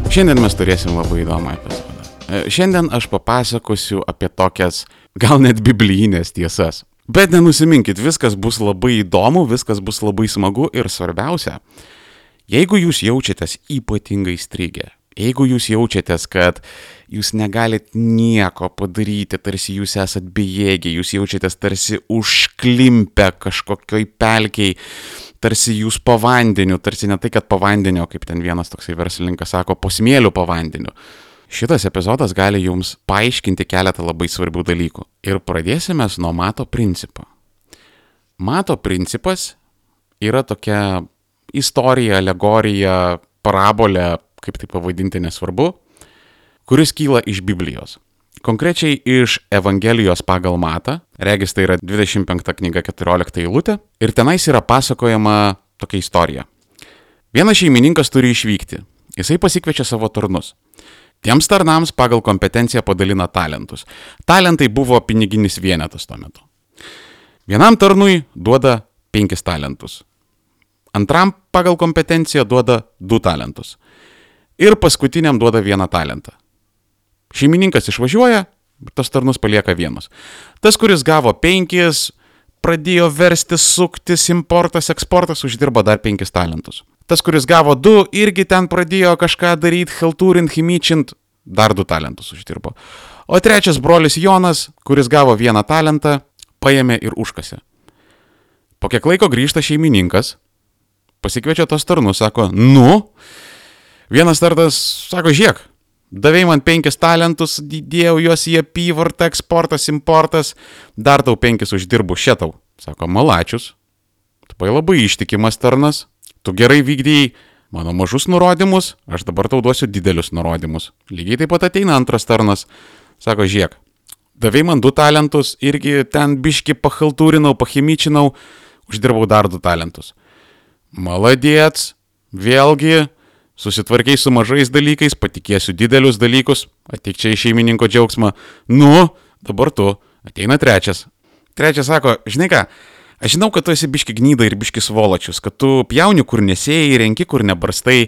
Šiandien mes turėsim labai įdomų epizodą. Šiandien aš papasakosiu apie tokias, gal net biblijinės tiesas. Bet nenusiminkit, viskas bus labai įdomu, viskas bus labai smagu ir svarbiausia, jeigu jūs jaučiatės ypatingai strigę, jeigu jūs jaučiatės, kad jūs negalit nieko padaryti, tarsi jūs esat bejėgiai, jūs jaučiatės tarsi užklimpę kažkokioj pelkei, tarsi jūs po vandeniu, tarsi ne tai, kad po vandeniu, kaip ten vienas toksai verslininkas sako, po smėliu po vandeniu. Šitas epizodas gali jums paaiškinti keletą labai svarbių dalykų. Ir pradėsime nuo mato principo. Mato principas yra tokia istorija, alegorija, parabolė, kaip tai pavadinti nesvarbu, kuris kyla iš Biblijos. Konkrečiai iš Evangelijos pagal Matą, regis tai yra 25 knyga 14 eilutė, ir tenais yra pasakojama tokia istorija. Vienas šeimininkas turi išvykti, jisai pasikviečia savo tarnus. Tiems tarnams pagal kompetenciją padalina talentus. Talentai buvo piniginis vienetas tuo metu. Vienam tarnui duoda 5 talentus. Antram pagal kompetenciją duoda 2 talentus. Ir paskutiniam duoda 1 talentą. Šeimininkas išvažiuoja, tas tarnus palieka vienus. Tas, kuris gavo 5, pradėjo verstis, suktis, importas, eksportas, uždirbo dar 5 talentus. Tas, kuris gavo 2, irgi ten pradėjo kažką daryti, chaltūrint, chimyčint, dar 2 talentus uždirbo. O trečias brolis Jonas, kuris gavo 1 talentą, paėmė ir užkasė. Po kiek laiko grįžta šeimininkas, pasikviečia tos tarnus, sako, vienas tarnas sako, žiūrėk, davei man 5 talentus, dėjau juos į apyvartą, eksportas, importas, dar tau 5 uždirbu, šitau. Sako, malačius, tu labai ištikimas tarnas, tu gerai vykdėjai mano mažus nurodymus, aš dabar tau duosiu didelius nurodymus. Lygiai taip pat ateina antras tarnas, sako, žiūrėk, davei man 2 talentus, irgi ten biški pachaltūrinau, pachimyčinau, uždirbau dar 2 talentus. Maladėts, vėlgi, susitvarkiai su mažais dalykais, patikėsiu didelius dalykus, ateik čia į šeimininko džiaugsmą. Dabar tu, ateina trečias. Trečias sako, žinai ką, aš žinau, kad tu esi biški gnyda ir biški svoločius, kad tu pjauni kur nesėjai, renki kur nebarstai,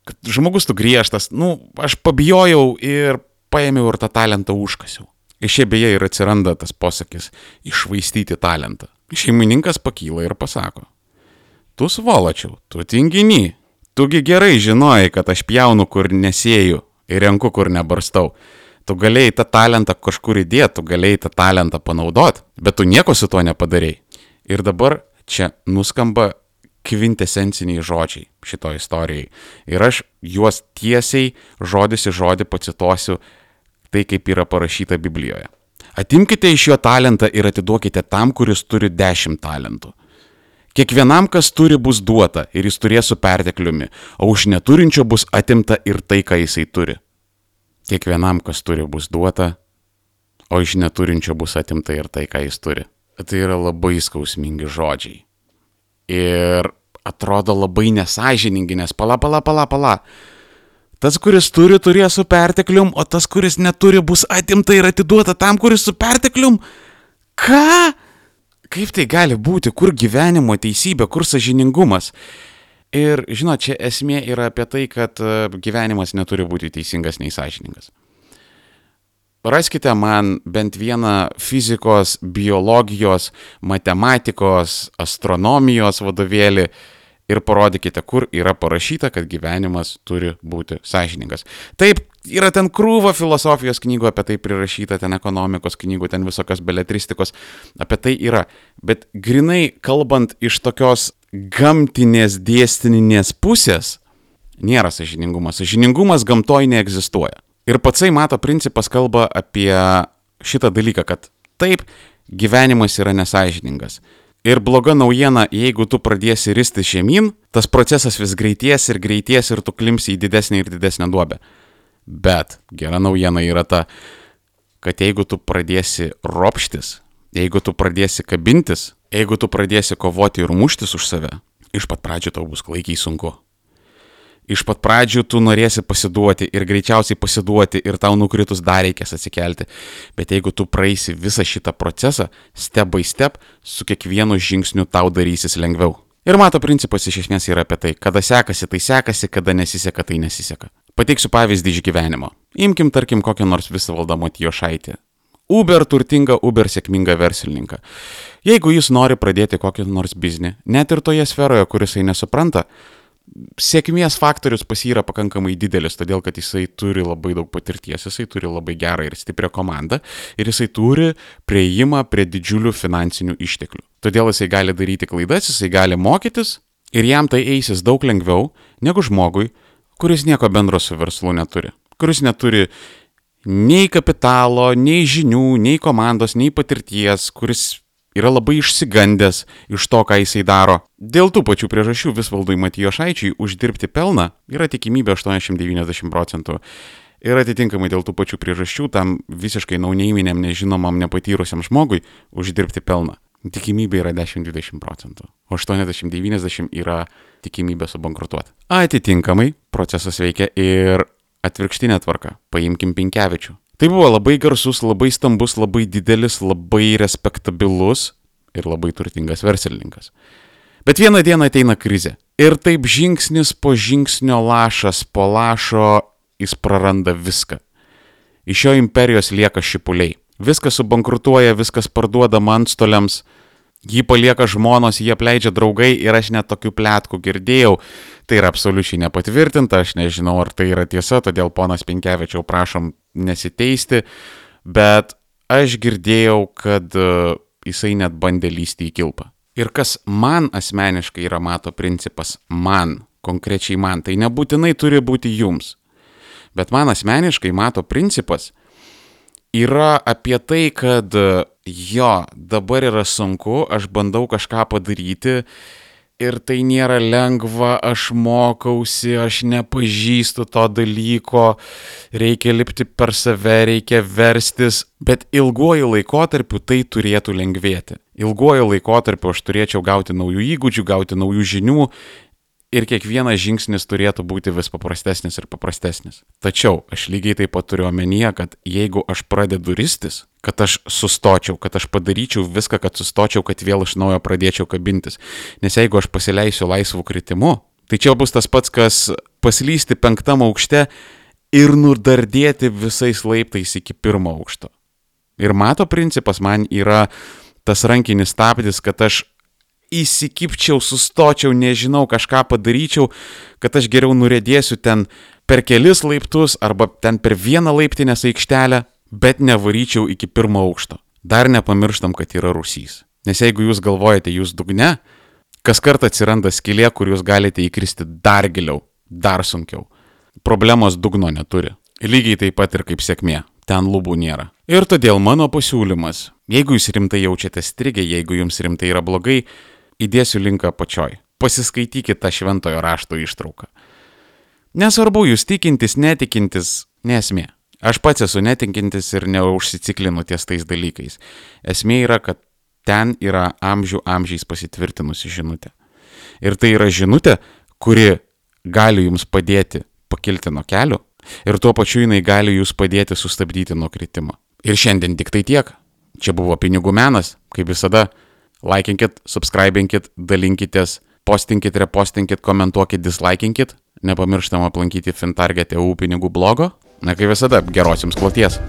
kad žmogus tu griežtas. Aš pabijojau ir paėmiau ir tą talentą užkasiau. Iš čia beje ir atsiranda tas posakis iššvaistyti talentą. Šeimininkas pakyla ir pasako, tu svoločiau, tu tinginy. Tugi gerai žinojai, kad aš pjaunu kur nesėju ir renku kur nebarstau. Tu galėjai tą talentą kažkur įdėti, tu galėjai tą talentą panaudoti, bet tu nieko su tuo nepadarei. Ir dabar čia nuskamba kvintesenciniai žodžiai šito istorijai. Ir aš juos tiesiai žodis į žodį pacituosiu tai, kaip yra parašyta Biblijoje. Atimkite iš jo talentą ir atiduokite tam, kuris turi 10 talentų. Kiekvienam, kas turi, bus duota ir jis turės su pertekliumi, o už neturinčio bus atimta ir tai, ką jisai turi. Kiekvienam, kas turi, bus duota, o iš neturinčio bus atimta ir tai, ką jis turi. Tai yra labai skausmingi žodžiai. Ir atrodo labai nesąžiningi, nes pala. Tas, kuris turi, turės su perteklium, o tas, kuris neturi, bus atimta ir atiduota tam, kuris su perteklium. Ką? Kaip tai gali būti, kur gyvenimo teisybė, kur sąžiningumas? Ir, žinot, čia esmė yra apie tai, kad gyvenimas neturi būti teisingas nei sąžiningas. Raskite man bent vieną fizikos, biologijos, matematikos, astronomijos vadovėlį ir parodykite, kur yra parašyta, kad gyvenimas turi būti sąžiningas. Taip, yra ten krūva filosofijos knygų apie tai prirašyta, ten ekonomikos knygų, ten visokios beletristikos, apie tai yra. Bet grinai kalbant iš tokios gamtinės dėsninės pusės, nėra sąžiningumas. Sąžiningumas gamtoj neegzistuoja. Ir patsai mato principas kalba apie šitą dalyką, kad taip, gyvenimas yra nesąžiningas. Ir bloga naujiena, jeigu tu pradėsi ristis žemyn, tas procesas vis greities ir tu klimsi į didesnę ir didesnę duobę. Bet gera naujiena yra ta, kad jeigu tu pradėsi ropštis, jeigu tu pradėsi kabintis, jeigu tu pradėsi kovoti ir muštis už save, iš pat pradžių tau bus klaikiai sunku. Iš pat pradžių tu norėsi pasiduoti ir greičiausiai pasiduoti ir tau nukritus dar reikės atsikelti. Bet jeigu tu praeisi visą šitą procesą, step by step, su kiekvienu žingsniu tau darysis lengviau. Ir mato principas iš esmės yra apie tai, kada sekasi, tai sekasi, kada nesiseka, tai nesiseka. Pateiksiu pavyzdį iš gyvenimo. Imkim, tarkim, kokią nors Visvaldą Matijošaitį. Uber turtingą, Uber sėkmingą verslininką. Jeigu jis nori pradėti kokį nors biznį, net ir toje sferoje, kuris jisai nesupranta, sėkmės faktorius pas jį yra pakankamai didelis, todėl kad jisai turi labai daug patirties, jisai turi labai gerą ir stiprią komandą ir jisai turi prieimą prie didžiulių finansinių išteklių. Todėl jisai gali daryti klaidas, jisai gali mokytis ir jam tai eisis daug lengviau negu žmogui, kuris nieko bendro su verslu neturi, kuris neturi nei kapitalo, nei žinių, nei komandos, nei patirties, kuris yra labai išsigandęs iš to, ką jisai daro. Dėl tų pačių priežasčių Visvaldui Matijošaičiui uždirbti pelną yra tikimybė 80-90%. Ir atitinkamai dėl tų pačių priežasčių tam visiškai nauneiminiam, nežinomam, nepatyrusiam žmogui uždirbti pelną. Tikimybė yra 10-20%, o 80-90% yra tikimybė subankrutuoti. Atitinkamai procesas veikia ir atvirkštinė tvarka. Paimkim Pinkevičių. Tai buvo labai garsus, labai stambus, labai didelis, labai respektabilus ir labai turtingas verslininkas. Bet vieną dieną ateina krizė. Ir taip žingsnis po žingsnio, lašas po lašo, jis praranda viską. Iš jo imperijos lieka šipuliai. Viskas subankrutuoja, viskas parduodama antstoliams, jį palieka žmonos, jį apleidžia draugai ir aš net tokių pletkų girdėjau. Tai yra absoliučiai nepatvirtinta, aš nežinau, ar tai yra tiesa, todėl ponas Pinkevičiau prašom nesiteisti, bet aš girdėjau, kad jisai net bandė lįsti į kilpą. Ir kas man asmeniškai yra mato principas, konkrečiai man, tai nebūtinai turi būti jums, bet man asmeniškai mato principas yra apie tai, kad dabar yra sunku, aš bandau kažką padaryti ir tai nėra lengva, aš mokausi, aš nepažįstu to dalyko, reikia lipti per save, reikia verstis, bet ilguoju laikotarpiu tai turėtų lengvėti. Ilguoju laikotarpiu aš turėčiau gauti naujų įgūdžių, gauti naujų žinių ir kiekvienas žingsnis turėtų būti vis paprastesnis ir paprastesnis. Tačiau aš lygiai taip pat turiu omenyje, kad jeigu aš pradedu ristis, kad aš sustočiau, kad aš padaryčiau viską, kad sustočiau, kad vėl iš naujo pradėčiau kabintis. Nes jeigu aš pasileisiu laisvų kritimu, tai čia bus tas pats, kas paslysti 5. aukšte ir nudardėti visais laiptais iki 1. aukšto. Ir mato principas man yra tas rankinis stabdis, kad aš įsikipčiau, sustočiau, nežinau, kažką padaryčiau, kad aš geriau nuriedėsiu ten per kelis laiptus arba ten per vieną laiptinės aikštelę, bet nevaryčiau iki 1. aukšto. Dar nepamirštam, kad yra rūsys. Nes jeigu jūs galvojate, jūs dugne, kas kartą atsiranda skylė, kur jūs galite įkristi dar giliau, dar sunkiau. Problemos dugno neturi. Lygiai taip pat ir kaip sėkmė. Ten lubų nėra. Ir todėl mano pasiūlymas, jeigu jūs rimtai jaučiate strigę, jeigu jums rimtai yra blogai, įdėsiu linką apačioj. Pasiskaitykite tą šventojo rašto ištrauką. Nesvarbu, jūs tikintis, netikintis, nesmė. Aš pats esu netikintis ir neužsiciklinu ties tais dalykais. Esmė yra, kad ten yra amžiais pasitvirtinusi žinutė. Ir tai yra žinutė, kuri gali jums padėti pakilti nuo kelio ir tuo pačiu jinai gali jūs padėti sustabdyti nuo kritimo. Ir šiandien tik tai tiek. Čia buvo Pinigų menas, kaip visada. Laikinkit, subscribinkit, dalinkitės, postinkit, repostinkit, komentuokit, dislaikinkit. Nepamirštam aplankyti Fintarget.eu pinigų blogo. Na kaip visada, geros jums kloties.